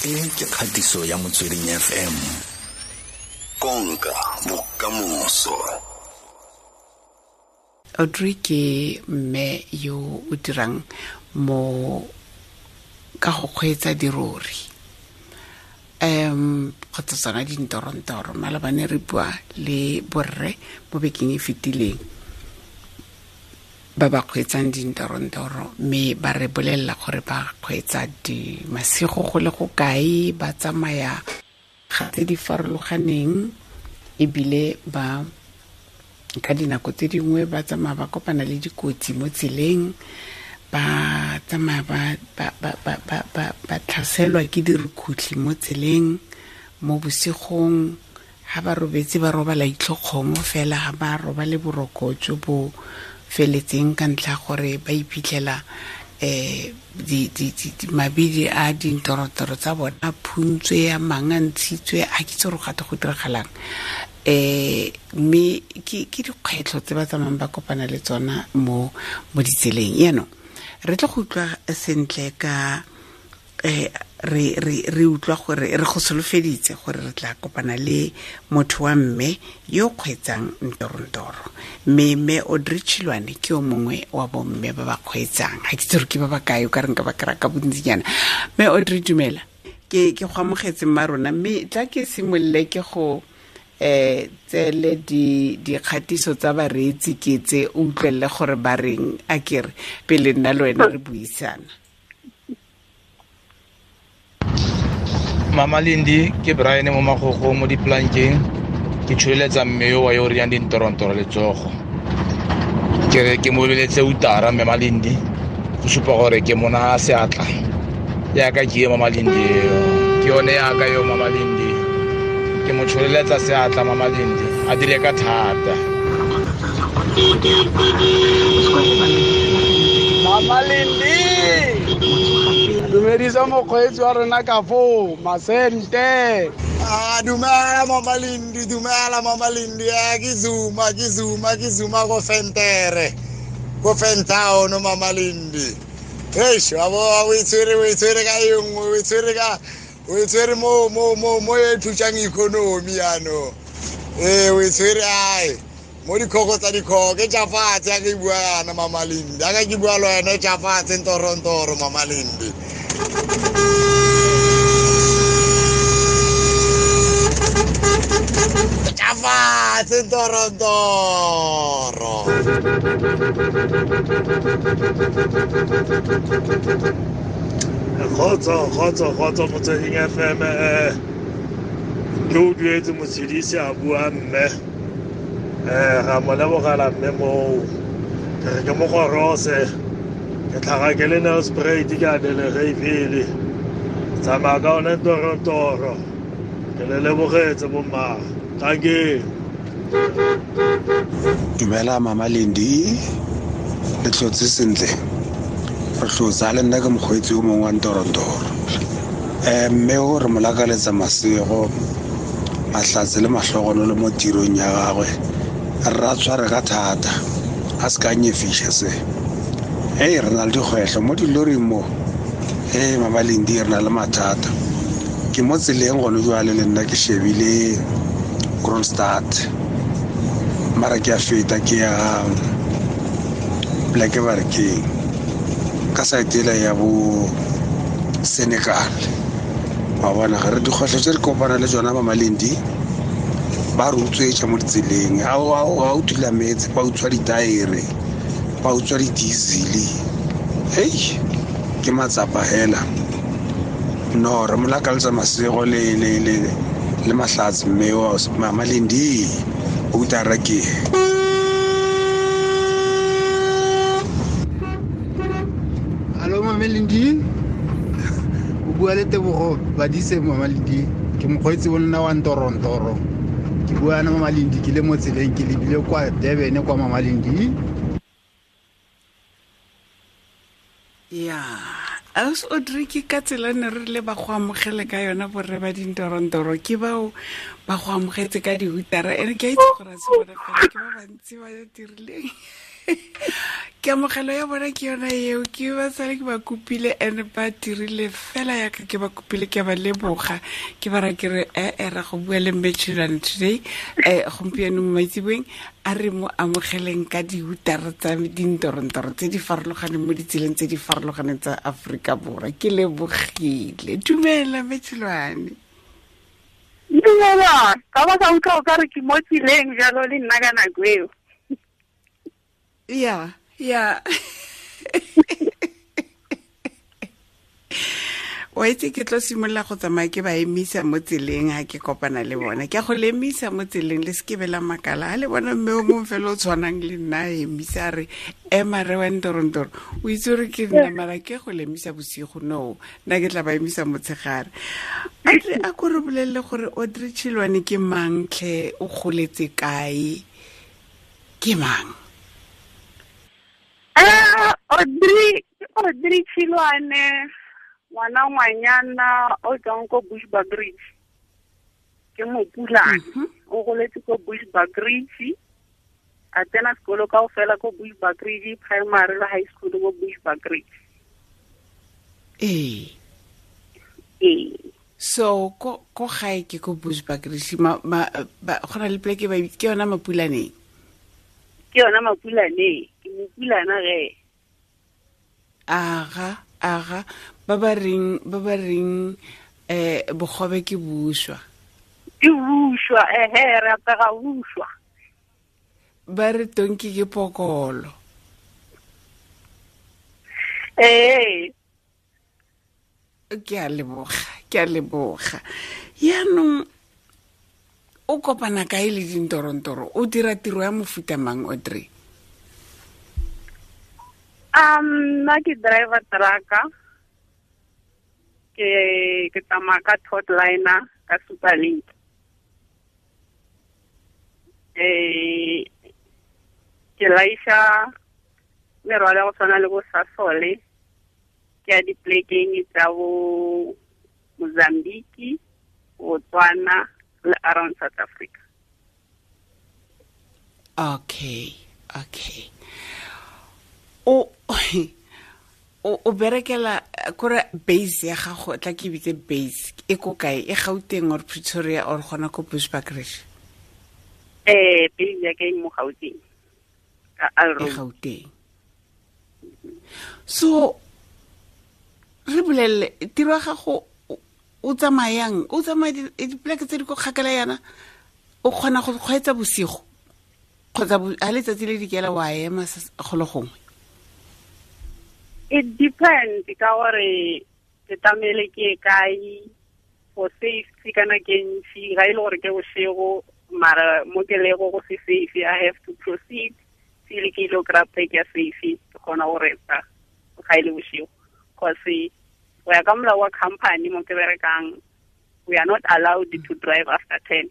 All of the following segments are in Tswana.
E ke kgatiso ya Motsweding FM. Konka bokamoso. Audrey ke mme yo o dirang mo ka go kgweetsa dirori, kgotsa tsona dintorontoro. Malabane re bua le borre mo bekeng e fetileng ba ba kgweetsang dintorontoro, mme ba re bolelela gore ba kgweetsa di masigo go le go kae, ba tsamaya ga tse di farologaneng, ebile ba ka dinako tse dingwe ba tsamaya ba kopana le dikotsi mo tseleng, ba tsamaya ba tlhaselwa ke dirukhutlhi mo tseleng mo bosigong. Ha ba robetse ba robala itlhokgomo fela, ha ba robale boroko jo bo feletseng ka ntlha gore ba iphitlhela mabidi a dintorotoro tsa bona a phuntswe, a mang a ntshitswe, a ke itse gore gate go diragalang. Mme ke dikgwetlho tse ba tsamayang ba kopana le tsona mo ditseleng. Yaanong re tlo go utlwa sentle ka re utlwa gore re go solofeditse gore re tla kopana le motho wa mme yo kgweetsang ntorontoro, mme mme Audrey Chiloane ke yo mongwe wa bomme ba ba kgweetsang. Ga ke itse gore ke ba ba kae, o ka re nka ba kry-a ka bontsinyana. Mme Audrey, dumela, ke go amogetse mma rona, mme tla ke simolole ke go tsele dikgatiso tsa bareetsi ke tse o utlwelele gore ba reng, a kere pele nna le wena re buisana. Mama Lindi, ke Brian mo Magogo mo diplankeng, ke tsholeletsa mme yo wa yo riyang dintorontoro letsogo. Ke re ke mo lebeletse utara mme Malindi, go supa gore ke mona seatla. Yaka ke ye Mama Lindi eo, ke yone yaka yo Mama Lindi. Ke mo tsholeletsa seatla Mama Lindi, a dire ka thata. Mama Lindi, dumedisa mokgweetsi wa rona ka foo, masente. Ah, dumela Mama Lindi, dumela Mama Lindi. Ke Zuma, ke Zuma, ke Zuma go Fentere, go Fentown Mama Lindi. Eish, wa bo o itshwere, o itshwere ka e nngwe, o itshwere ka, o itshwere mo, mo, mo, mo e thusang economy yaanong. Ee, o itshwere ae mo dikgogo tsa dikgogo, ke tša fatshe ya ke bua yana Mama Lindi, ya ke bua le wena tša fatshe ntorontoro Mama Lindi. Tša fatshe ntorontoro. Kgotso, kgotso, kgotso Motsweding FM, ke o duetse motshedisi a bua mme. Ga mo lebogela mme moo. Ke re ke mo gorose, ke tlhaga ke le Nelspruit, ke a Delegeville. Tsamaya ka one ntorontoro. Ke le lebogetse bomma. Thank you. Dumela Mama Lindi, le tlhotse sentle. Re tlhotse le nna ke mokgweetsi yo mongwe wa ntorontoro. Mme o re mo lakaletsa masego, mahlatse le mahlogonolo mo tirong ya gagwe. Re a tshware ka thata, a se ka nyefiša se. Hei, re na le dikgwetlho mo diloring mo. Hei, Mama Lindi, re na le mathata. Ke mo tseleng gone jwale le nna ke shebile Kroonstad, mara ke a feta ke ya Black Barkeng ka side ela ya bo Senekal. Wa bona ga re dikgwetlho tse re kopana le tsona Mama Lindi, ba re utswetsa mo ditseleng. Ha o thula metse, ba utswa ditaere, ba utswa di-diesel. Hei, ke matsapa hela. No, re mo lakaletsa masego le mahlatse mme wa Mama Lindi, o utara ke. Hallo Mama Lindi, o bua le Tebogo Badise Mama Lindi, ke mokgweetsi o nna wa ntorontoro. Ke bua na Mama Lindi ke le mo tseleng, ke lebile kwa Durban kwa Mama Lindi. Ya, Aus Audrey, ke ka tsela ne re le ba go amogele ka yona borre ba dintorontoro, ke bao ba go amogetse ka dihutara. Ene ke a itse gore a se bona fela, ke ba bantsi ba dirileng. Ke amogelo ya bona ke yona eo, ke ba sale ke ba kopile and ba dirile fela yaka ke ba kopile, ke ba leboga, ke ba ra ke re ee ra go bua le mme Chilwane today, gompieno mo maitseboeng a re mo amogeleng ka diutara tsa dintorontoro tse di farologaneng mo ditseleng tse di farologaneng tsa Aforika Borwa. Ke lebogile. Dumela mme Chilwane. Dumela, ka ba ka utlwa o ka re ke mo tseleng jalo le nna ka nako eo. Ya, ya. Wa itse ke tlo simolola go tsamaya ke ba emisa mo tseleng ha ke kopana le bona. Ke a go le emisa mo tseleng, le se ke be la makala. Ha le bona mme o mongwe fela o tshwanang le nna a emisa a re, ema re wa ntorontoro. O itse gore ke nna, mara ke go le emisa bosigo, no. Nna ke tla ba emisa motshegare. Audrey, a ko re bolelele gore Audrey Chilwane ke mang tlhe, o goletse kae, ke mang? Audrey Chilwane, ngwana ngwanyana o tswang ko Bushbuckridge. Ke Mopulane. O goletse ko Bushbuckridge. A tsena sekolo kaofela ko Bushbuckridge, primary le high school ko Bushbuckridge. Ee. Ee. So ko gae ke ko Bushbuckridge, go na le pleke ba ke yona Mapulaneng. Ke yona Mapulaneng, ke Mopulana ge. Aga, aga, ba ba reng bogobe ke buswa. Ke buswa, ehe, re apega buswa. Ba re tonki ke pokolo. Ee. Ke a leboga, ke a leboga. Yaanong o kopana kae le dintorontoro? O dira tiro ya mofuta mang, Audrey? Nna ke driver trucker. Ke tsamaya ka Todd Liner ka Superlink. Ke laisha merwalo ya go tshwana le bo Sasole, ke ya diplekeng tsa bo Mozambique, Botswana le around South Africa. Okay, okay. O berekela kore base ya gago, tla ke bitse base e ko kae? E Gauteng or Pretoria or gona ko Bushbuckridge? Base ya ka e mo Gauteng. Ka Alro. E Gauteng. So re bolelle tiro ya gago, o tsamayang, o tsamaya dipleke tse di ko kgakala yana, o kgona go kgweetsa bosigo kgotsa ha letsatsi le dikela wa ema go le gongwe? It depends ka gore ke tlamehile ke ye kae for safety kana ke ntsi, ga e le gore ke bosigo mara mo ke lego go se safe, I have to proceed till ke ile kry-a pleke ya safe, ke kgona go resta ga e le bosigo. Cause go ya ka molao wa company mo ke berekang, we are not allowed to drive after 10.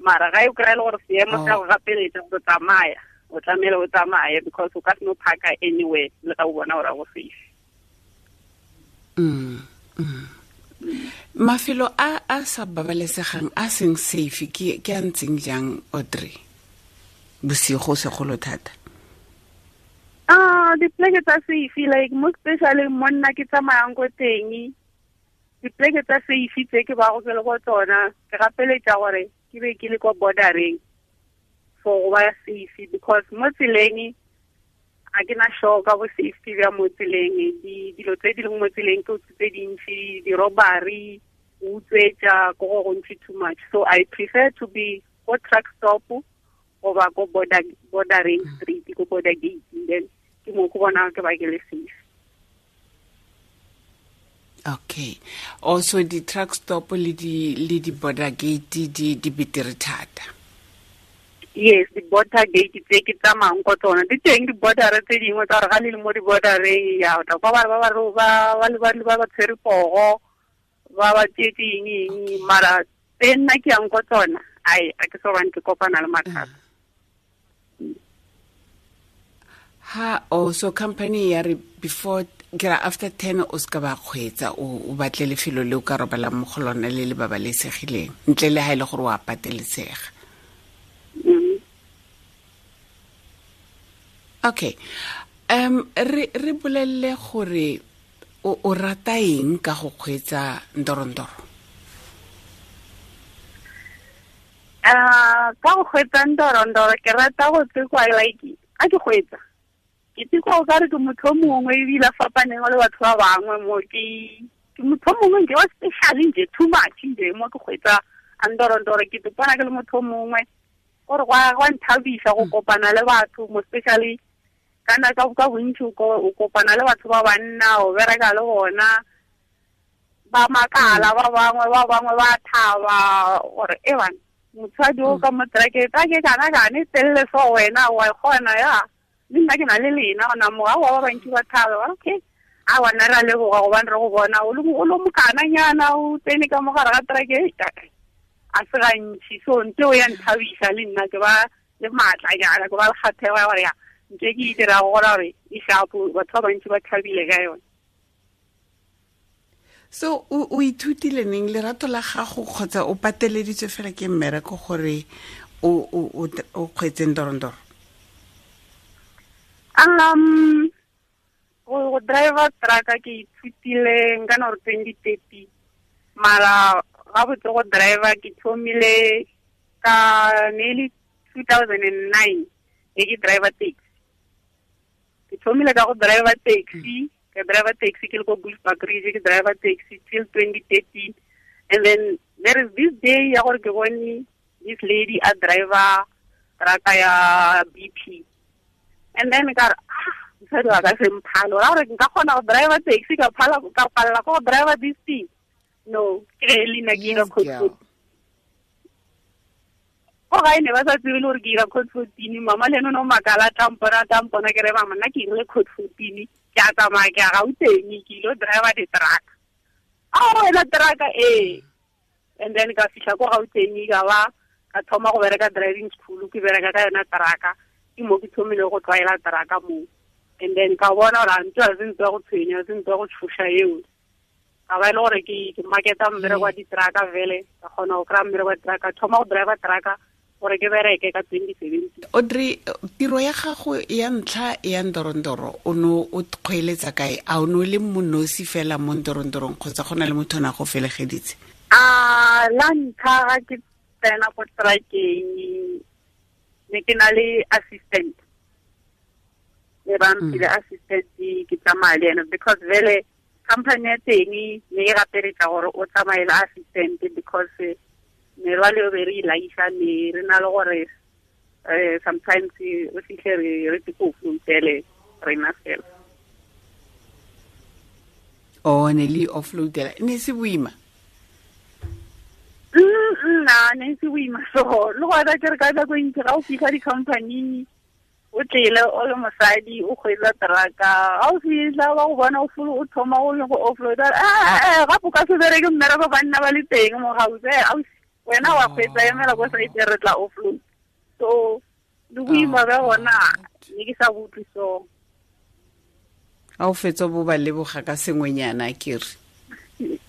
Mara ga e kry-e le gore seemo sa go gapeletsa go tsamaya, o tlamehile o tsamaye because o ka se no parka anywhere le ga o bona gore go safe. Mafelo a sa babalesegang a seng safe ke a ntseng jang, Audrey? Bosigo segolo thata. Dipleke tsa safe, like mo especially mo nna ke tsamayang ko teng, dipleke tsa safe tse ke ba go ke le go tsona, ke gapeletsa gore ke be ke le kwa bordereng for go ba safe, because mo tseleng a ke na sure ka bo safety bja mo tseleng. Dilo tse di leng mo tseleng ke tse dintsi, di-robbery, go utswetsa, ko go gontsi too much. So I prefer to be ko truck stop goba ko bordering street, ko border gate, then ke mo go bona ke ba ke le safe. Okay. Also di truck stop le di border gate di betere thata. Yes, di border gate tse ke tsamayang ko tsona. Di teng di border tse dingwe tsa gore ga le le mo di bordereng ya o tla kwa ba ba ba ba ba ba ba tshwere pogo, ba ba tsetse eng eng, mara tse nna ke yang ko tsona, ai, a ke so bane ke kopana le mathata. Ha, oh, so company ya re before, ke ra after 10 o ska ba kgweetsa, o batle lefelo le o ka robalang mo go lona le le babalesegileng, ntle le ha e le gore o a patelesega. Okay, re bolelle gore o rata eng ka go kgweetsa ndorondoro? Ka go kgweetsa ndorondoro ke rata go tsekwa like a ke kgweetsa ke tsekwa o kare ke motho o mongwe ebile a fapaneng le batho ba bangwe mo ke motho o mongwe nke wa special nje too much nje mo ke kgweetsa ndorondoro ke topana ke le motho o mongwe gore gwa nthabisa go kopana le batho mo especially kana ka bontsi o kopana le batho ba banna o bereka le bona ba makala ba bangwe ba thaba gore e bana motshwadi o ka mo trake kana kane telle so wena wa kgona ya le nna ke na le lena gona mo ga ba bantsi ba thaba okay a wana ra leboga gobane re go bona o lo mokananyana o tsene ka mogare ga trake a se gantši. So ntse o ya nthabisa le nna ke ba le maatla jana ke ba le kgathego ya gore ya ntse ke e dirago gora gore e shapo batho ba bantsi ba thabile ka yone. So o ithutile neng lerato la gago kgotsa o pateleditswe fela ke mmereko gore o kgweetse ndorondoro? Go driver truck ke ithutile nka no 2030 mara ga botse go driver ke thomile ka nearly 2009 e ke driver taxi. Ke thomile ka go driver taxi, ke driver taxi ke le ko Bushbuckridge, ke driver taxi till 2013. And then there is this day ya gore ke bone this lady a driver truck ya BP. And then ka re mosadi wa ka se mphalo ra gore nka kgona go driver taxi ka phala ka palela go driver this thing. No, ke le nna ke ira code 14. Go gae ne ba sa tsebe le gore ke ira code 14. Mama le ene o ne o makala tampona ke re mama nna ke irile code 14 ke a tsamaya ke a Gauteng ke ilo driver di-truck. A wena truck ee. And then ka fitlha ko Gauteng ka ba ka thoma go bereka driving school ke bereka ka yona truck ke mo ke thomile go tlwaela truck mo. And then ka bona gore ntho a se ntho ya go tshwenya se ntho ya go tshoša eo. Ka ba e le gore ke marketa mmereko wa di-truck vele ka kgona go kry-a mmereko wa di-truck thoma go driver truck gore ke bereke ka 2017. Audrey, tiro ya gago ya ntlha ya ndorondoro o ne o kgweeletsa kae? A o ne o le monosi fela mo ndorondorong kgotsa go na le motho o ne a go felegeditse? La ntlha ga ke tsena ko truckeng ne ke na le assistant. Ne ba mphile assistant ke tsamaya le ene because vele company ya teng ne e gapeletsa gore o tsamaye le assistant because merwalo e be re ilaisa ne re na le gore sometimes re fitlhe re go offloadele rena fela. O ne le offloadela ne se boima? Nna ne se boima so le gona ke re ka nako e ntsi ga o fitlha di-company o tlele o le mosadi o kgweetsa truck-a ga o fitlha ba go bona o thoma go le go offloada gape o ka se bereke mmereko banna ba le teng mo gaufi wena wa kgweetsa emela ko site re tla offload. So le boima ba gona ne ke sa bo utlwe so. A o fetsa bo ba leboga ka sengwenyana ke re?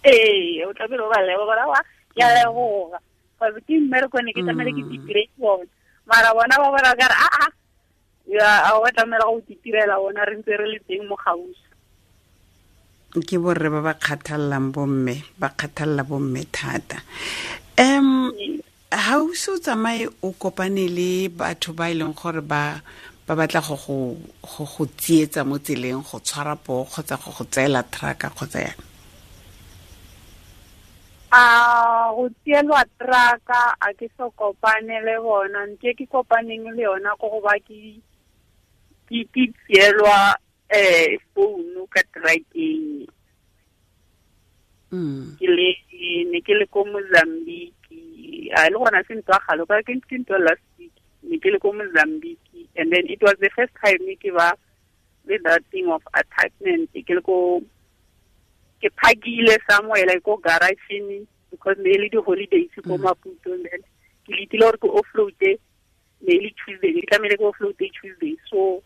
Ee, o tlamehile o ba leboga wa ke a leboga cause ke mmereko ne ke tlamehile ke itire bona mara bona ba bona ka re aa ya a wa tlamela go itirela bona re ntse re le teng mo gaufi. Ke borre ba ba kgathallang bomme, ba kgathalla bomme thata. Ha o se o tsamaye o kopane le batho ba e leng gore ba batla go go tsietsa mo tseleng go tshwara poo kgotsa go go tseela truck kgotsa yang? Go tsielwa truck a ke so kopane le bona nke ke kopaneng le yona go go ba ke tsielwa phone ka truckeng. Ke le ne ke le ko Mozambique a le gona se ntwa galo ka ke ntwa last week ne ke le ko Mozambique and then it was the first time ke ba with that thing of attachment ke le ko ke phakile somewhere like ko garage because ne le di holidays ko Maputo and then ke letile gore ke offload ne le Tuesday ke tlamehile ke offload Tuesday so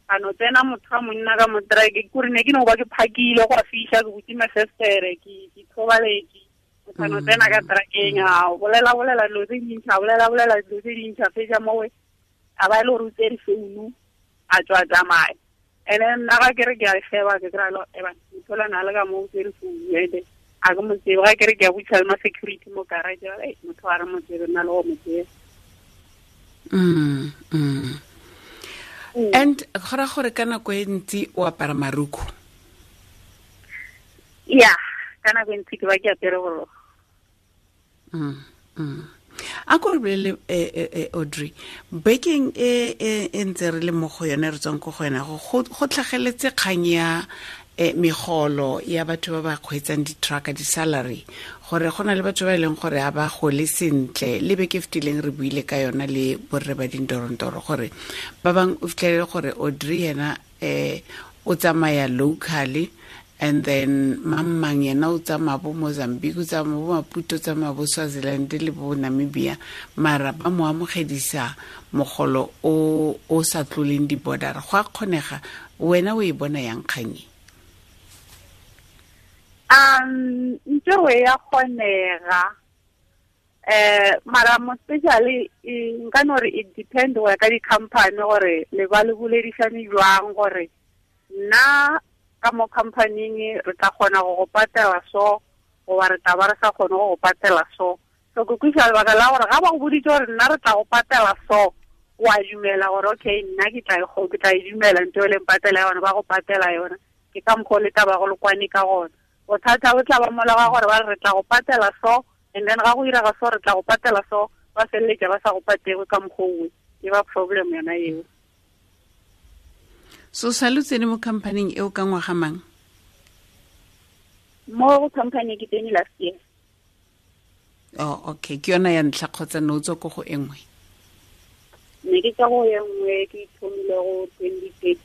a no tsena motho wa monna ka mo truck kore ne ke no ba ke phakile go fiša ke butse mafestere ke thobaletse motho a no tsena ka truckeng a bolela dilo tse dintšha bolela dilo tse dintšha fetša mowe a ba e le gore o tsere founu A tswa tsamaya. And then nna ga ke re ke a sheba, ke kry-a le eba motho na le ka mo o tsere founu ede a ke mo tsebe. Ga ke re ke a butsa le ma security mo garage, ba re motho a re mo tsebe, nna le go mo tsebe. And go ra gore ka nako e ntsi o apara maruku? Ya, ka nako e ntsi ke ba ke apere borokgo. A ko re bolele, Audrey, bekeng e ntse re le mo go yone, re tswang ko go yona, go tlhageletse kgang ya megolo ya batho ba ba kgweetsang di-truck, di-salary, gore go na le batho ba e leng gore ga ba gole sentle. Le beke fetileng re buile ka yona le borre ba dintorontoro, gore ba bangwe o fitlhelele gore Audrey yena o tsamaya locally, and then mang yena o tsamaya bo Mozambique, o tsamaya bo Maputo, o tsamaya bo Swaziland le bo Namibia, mara ba mo amogedisa mogolo o sa tloleng di-border. Go a kgonega? Wena o e bona yang kgang e? Ntho e ya kgonega, mara mo especially nka no re it depend go ya ka di-company gore le ba le boledišane jwang, gore nna ka mo company-ing re tla kgona go go patela so, goba re tla ba re sa kgone go go patela so. So ke kweša lebaka la gore ga ba go boditse gore nna re tla go patela so, wa dumela gore okay, nna ke tla e dumela ntho e leng patela yona, ba go patela yona. Ke ka mokgwa o le taba go le kwane ka gona. Bothata bo tla ba mola ga gore ba re tla go patela so, and then ga go irega so re tla go patela so, ba feleletša ba sa go patele ka mokgwa owe. E ba problem yona eo. So sa lo tsene mo company-ing eo ka ngwaga mang? Mo company ke tsene last year. Oh, okay. Ke yona ya ntlha kgotsa ne o tswa ko go e nngwe? Ne ke tswa go e nngwe, ke ithomile go 2013.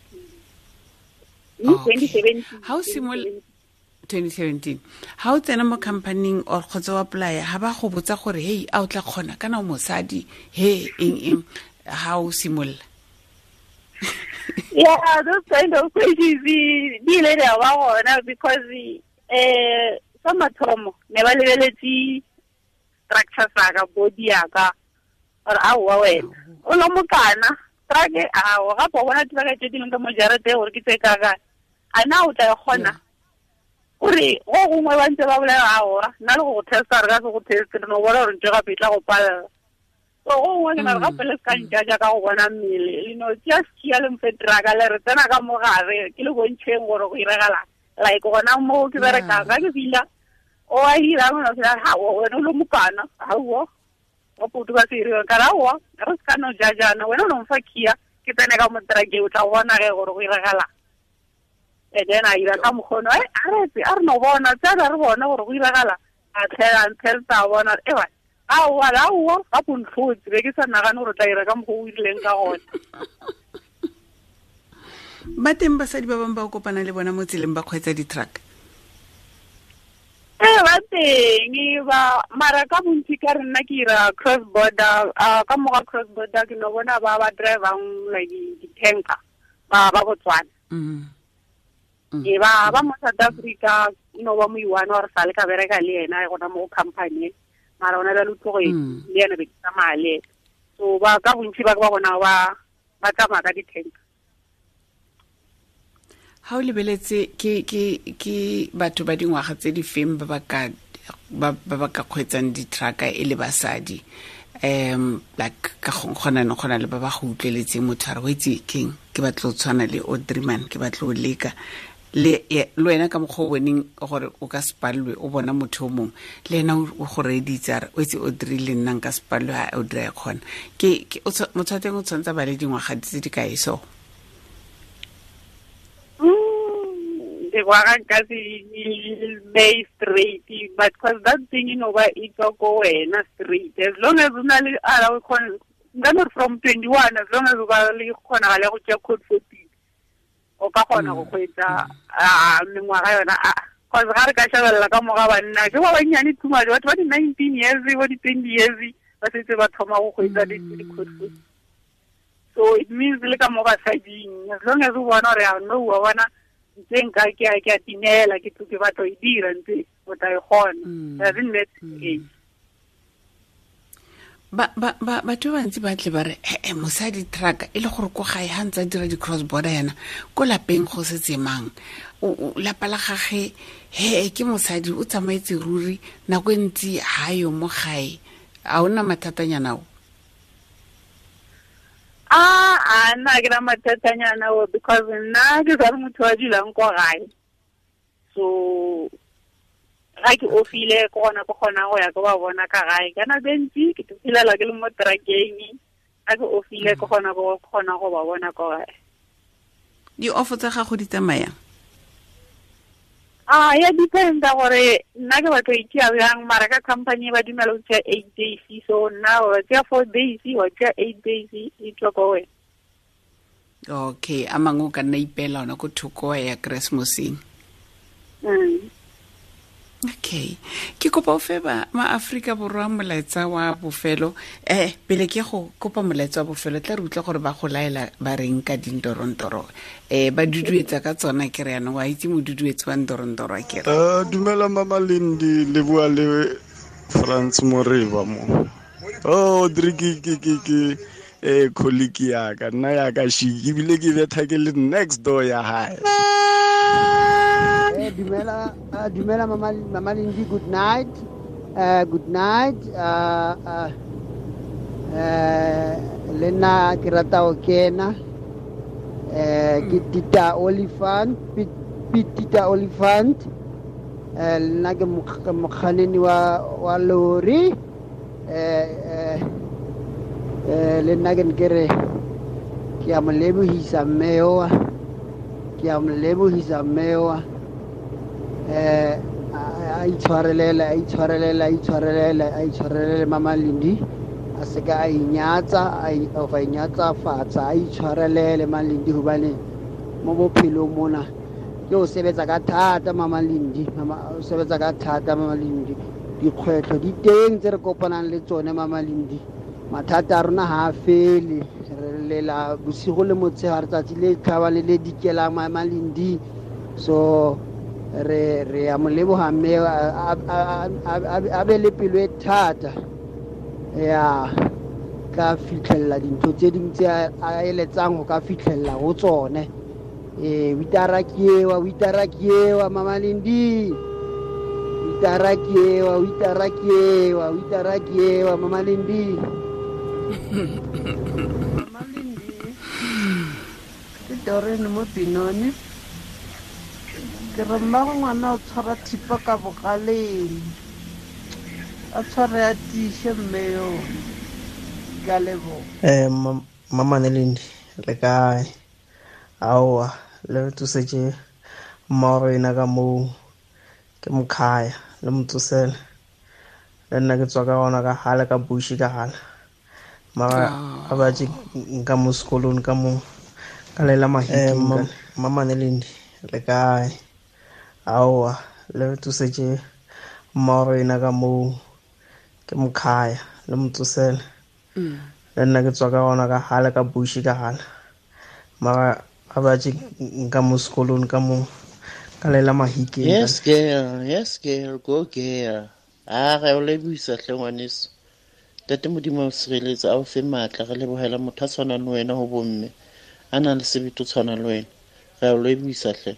2017. Ha o simolola 2017, ha o tsena mo company-ing or kgotsa o apply, ha ba go botsa gore hey, a o tla kgona kana o mosadi, he eng eng, ha o simolola? Yeah, those kind of questions di ile di a ba gona, because sa mathomo ne ba lebeletse structure sa ka, body ya ka, gore aowa wena o lo mokana truck, ao gape o bona truck tse di leng ka mo jarateng gore ke tse kakang, a na o tla e kgona? Gore go gongwe ba ntse ba bolela aowa nna le go go testa, re ka se go teste, re no bona gore ntho gape e tla go palela. So go gongwe ke na re gape le se ka njaja ka go bona mmele, le no tšea sekhia le mfe truck le re tsena ka mo gare, ke le bontšheng gore go iragalang. Like gona mo ke berekang ga ke fila o a irang, o fila ha wena o lo mokana, aowa wa putu ka se iriwang, ka re aowa re se ka no jajana, wena o no mfa khia ke tsene ka mo truck-eng, o tla bona ge gore go iragalang. And then a ira ka mokgono, a re a re no bona, tsena re bone gore go iragala, a tlhela nthelta a bona, ewa aowa aowa ga go ntlhotse, be ke sa nagane gore o tla ira ka mokgwa o irileng ka gona. Ba teng basadi ba bangwe ba o kopana le bona mo tseleng ba kgweetsa di-truck? Ee, ba teng ba, mara ka bontsi ka re nna ke ira cross border, ka moga cross border ke no bona ba ba drivang like di-tanker ba ba Botswana. E ba ba mo South Africa, no ba mo iwana gore sa le ka bereka le yena gona mo company, mara ona ba le tloge le yena be ke tsamaya le ena. So ba ka bontsi ba ba bona ba tsamaya ka di-tanker. Ha o lebeletse ke batho ba dingwaga tse di feng ba ba ka kgweetsang di-truck e le basadi? Like ka gona no gona le ba ba go utlweletseng motho a re o itse keng, ke batla go tshwana le Audrey man, ke batla go leka le wena ka mokgwa o boneng gore o ka se palelwe, o bona motho o mongwe le ena o go reeditse a re o itse Audrey le nna nka se palelwe, ha Audrey a e kgona. Ke motho wa teng o tshwanetse a ba le dingwaga tse di kae so? Dingwaga nka se bay straight, but because that thing, you know, ba e tswa ko wena straight, as long as o na le a o kgona, nka no re from 21, as long as o ba le kgonagalo ya go tšea code 14, o ka kgona go kgweetsa mengwaga yona. Cause ga re ka shebelela ka moga banna ke ba bannyane too much, batho ba di-19 years, bo di-20 years ba setse ba thoma go kgweetsa di-code 14. So it means le ka mo basading, as long as o bona gore a no wa bona ntse nka ke a timela, ke tlo ke batla e dira ntse, o tla e kgona. Doesn't matter age. Ba ba ba batho ba bantsi ba tle ba re ee mosadi truck e le gore ko gae ga ntse a dira di-cross border yana ko lapeng go setse mang, lapa la gage he ke mosadi o tsamaetse ruri nako e ntsi ga yo mo gae, a o nna mathatanyana o? A nna ke na mathatanyana o, because nna ke sa le motho wa dulang ko gae, so ga ke ofile ke gona ke kgonang go ya ke ba bona ka gae. Ka nako e ntsi ke fitlhelela ke le mo truckeng, ga ke ofile ke gona ke kgona go ba bona ko gae. Di-offo tsa gago di tsamayang? A ya dependa gore nna ke batlo itšea bjang, mara ka company ba dumela go tšea 8 days, so nna wa tšea 4 days, wa tšea 8 days, e tswa ko wena. Okay, a mangwe o ka nna ipeela ona ko thoko ya Keresemoseng. Okay, ke kopa o fe ba ma-Aforika Borwa molaetsa wa bofelo. Pele ke go kopa molaetsa wa bofelo, tla re utlwa gore ba go laela ba reng ka dintorontoro. Ba duduetsa ka tsona ke re yanong wa itse moduduetsi wa ntorontoro a kere. Dumela Mama Lindi, le bua le Frans Moreba mo. Oh, dre ke colleague ya ka, nna ya ka shiki, ebile ke betha ke le next door ya hae. Dumela, dumela Mama Lindi, good night. Good night. Le nna ke rata ho kena. Ke Tita Olifant, Tita Olifant. Le nna ke mokganni wa lori. Le nna ke ne ke re ke a mo lebohisa mme oa. Ke a mo lebohisa mme oa. A itshwarelele, a itshwarelele, a itshwarelele, a itshwarelele Mama Lindi. A se ka a inyatsa, a inyatsa fatshe, a itshwarelele Mama Lindi hobane mo bophelong mona ke o sebetsa ka thata Mama Lindi, mama o sebetsa ka thata Mama Lindi. Dikgwetlho di teng tse re kopanang le tsone Mama Lindi. Mathata a rona ha a fele, re lela bosigo le motshegare, tsatsi le tlhaba le le dikelang Mama Lindi. So re a mo leboha mme a be le pelo e thata ya ka fitlhella dintho tse ding tse a eletsang ho ka fitlhella ho tsone. Witara ke ewa, witara ke ewa Mama Lindi. Witara ke ewa, witara ke ewa, witara ke ewa Mama Lindi. Mama Lindi, ke Doreen mo Pinone. Ke re mmago ngwana o tshwara thipa ka bogaleng, a tshware a tiiše mme yo. Ke a leboha. Mama Lindi, le kae? Aowa, le re tsosetse mmago rena ka moo, ke mokhaya, le mo tsosele. Le nna ke tswa ka gona ka gale, ka bushi ka gale. Mara a ba tše nka mo sekolong ka mo, ka lela mahiking. Mama Lindi, le kae? Aowa, le re tsosetse mmago rena ka moo, ke mokhaya, le mo tsosele. Le nna ke tswa ka gona ka gale, ka bushi ka gale. Mara a ba tše nka mo sekolong ka mo, ka lela mahiking. Yes girl, yes girl, go girl. A re o lebohisa hle ngwaneso. Ntate Modimo a o sireletse, a o fe matla, re lebohela motho a tshwanang le wena ho bomme, a nang le sebete o tshwana le wena. Re a o lebohisa hle.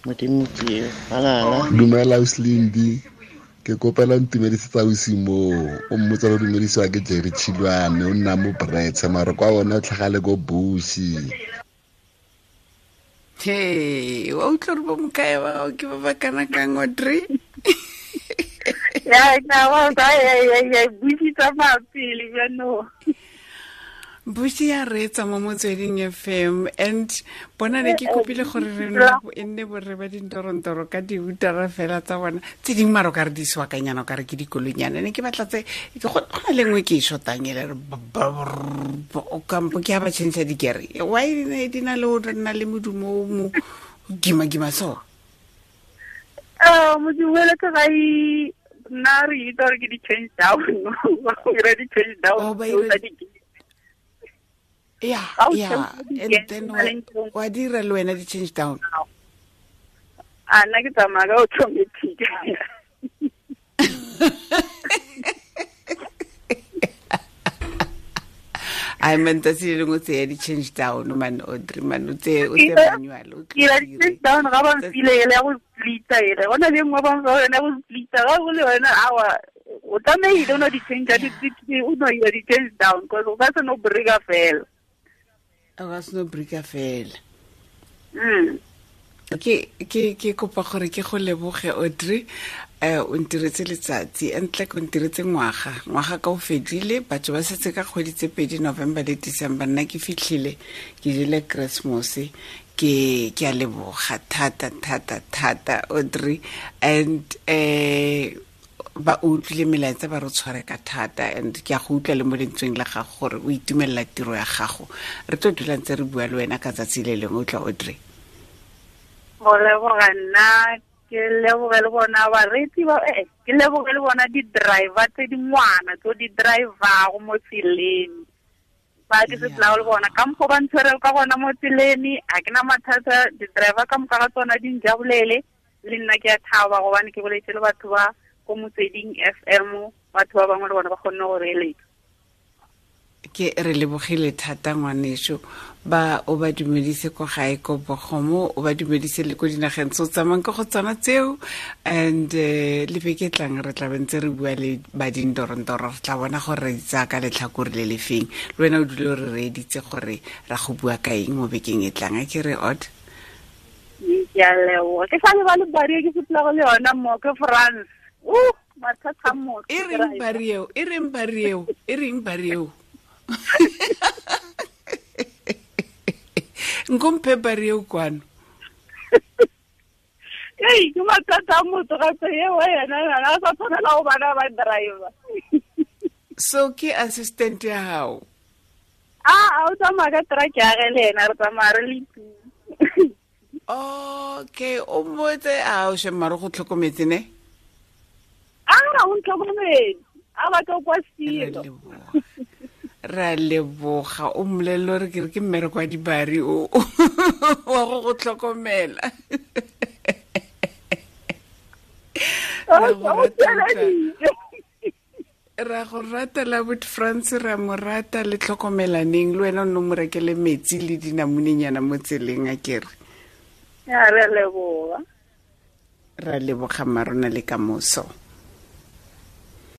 Modimo ke eo. Halala. Dumela Ausi ke kopela ntumedisetsa ausi moo, o mmotsa le dumedisiwa ke Jerry Chilwane, o nna mo Brets, mara kwa ona o tlhagale ko Bushi. Hey, wa utlwa gore bo mokae ba gago ke ba ba kana kang, Audrey? Ya, na wa ya Bushi tsamaya pele jaanong. Bushi ya reetsa mo Motsweding FM, and bona ne ke kopile gore re e nne borre ba dintorontoro ka diutara fela tsa bona tse dingwe, mara o ka re di swakanyana, o ka re ke dikoloinyana. Ne ke batla tse go na le nngwe ke e shotang ele re kampo ke ha ba change dikere. Why di na le o nna le modumo o mo gima-gima so? Modumo ele ke ga nna re itse gore ke di-change down. Ba di-change down. Oh, Yeah, yeah. And then wa dira le wena di-change down? A nna ke tsamaya ka automatic. Ai man tsatsi le lengwe o tseya di-change down man Audrey man o tseye o tseye manual o Ke ira di-change down ga ba mfile ele ya go splita ele go na le nngwe ba mfa yone ya go splita ga go le yone awa o tlamehile o no di-change o no ira di-change down cause o ka se no breka fela. O ka se no breka fela. Ke kopa gore ke go leboge Audrey, o ntiretse letsatsi entle o ntiretse ngwaga ka o fedile, batho ba setse ka kgwedi tse pedi, November le December, nna ke fitlhile ke jele Christmas. Ke a leboga thata thata thata Audrey, and ba utlwile melaetsa ba re tshware ka thata, and ke a go utlwa le mo lentsweng la gago gore o itumelela tiro ya gago. Re tlo dula ntse re bua le wena ka tsatsi le lengwe, o tla Audrey. Go leboga nna, ke leboge le bona bareetsi ba, ke leboge le bona di-driver tse dingwana tse di driver-go mo tseleng. Ba ke se tla le bona ka mokgwa ba ntshwere ka gona mo tseleng, a ke na mathata, di-driver ka moka ga tsona di njabolele, le nna ke a thaba gobane ke boletse le batho ba ko Motsweding FM, batho ba bangwe le bona ba kgonne go reeletsa. Ke re lebogile thata ngwaneso, ba o ba dumedise ko gae ko Bogomo, o ba dumedise le ko dinageng tse o tsamayang ka go tsona tseo, and le beke tlang re tla bentse re bua le ba dindorondoro, re tla bona gore re tsaya ka letlhakore le le feng. Le wena o dule o re reeditse gore ra go bua ka eng mo bekeng e tlang, a ke re Aud? Ke a leboga. Ke sa lebale bario ke sepela go le yona mo ke France. Mathata a motho. E reng bario? E reng bario? E reng bario? Nkomphe bario kwano. Ei, ke mathata a motho gape eo yena, yena a sa tshwanela go bana ba driver. So ke assistant ya hao? A o tsamaya ka truck ya ge le ena, re tsamaya re le two. Okay, o mmotse a o shema re go tlhokometse ne? A o ntlhokometse, a batla kwa selo. Ra leboga, o mmolelele gore ke re ke mmereko wa dibari o wa go go tlhokomela. Ra go rata la bot France, ra mo rata le tlhokomelaneng, le wena o nne o mo rekele metsi le dinamunenyana mo tseleng a kere. Ya, re leboga. Ra leboga mmarona le kamoso.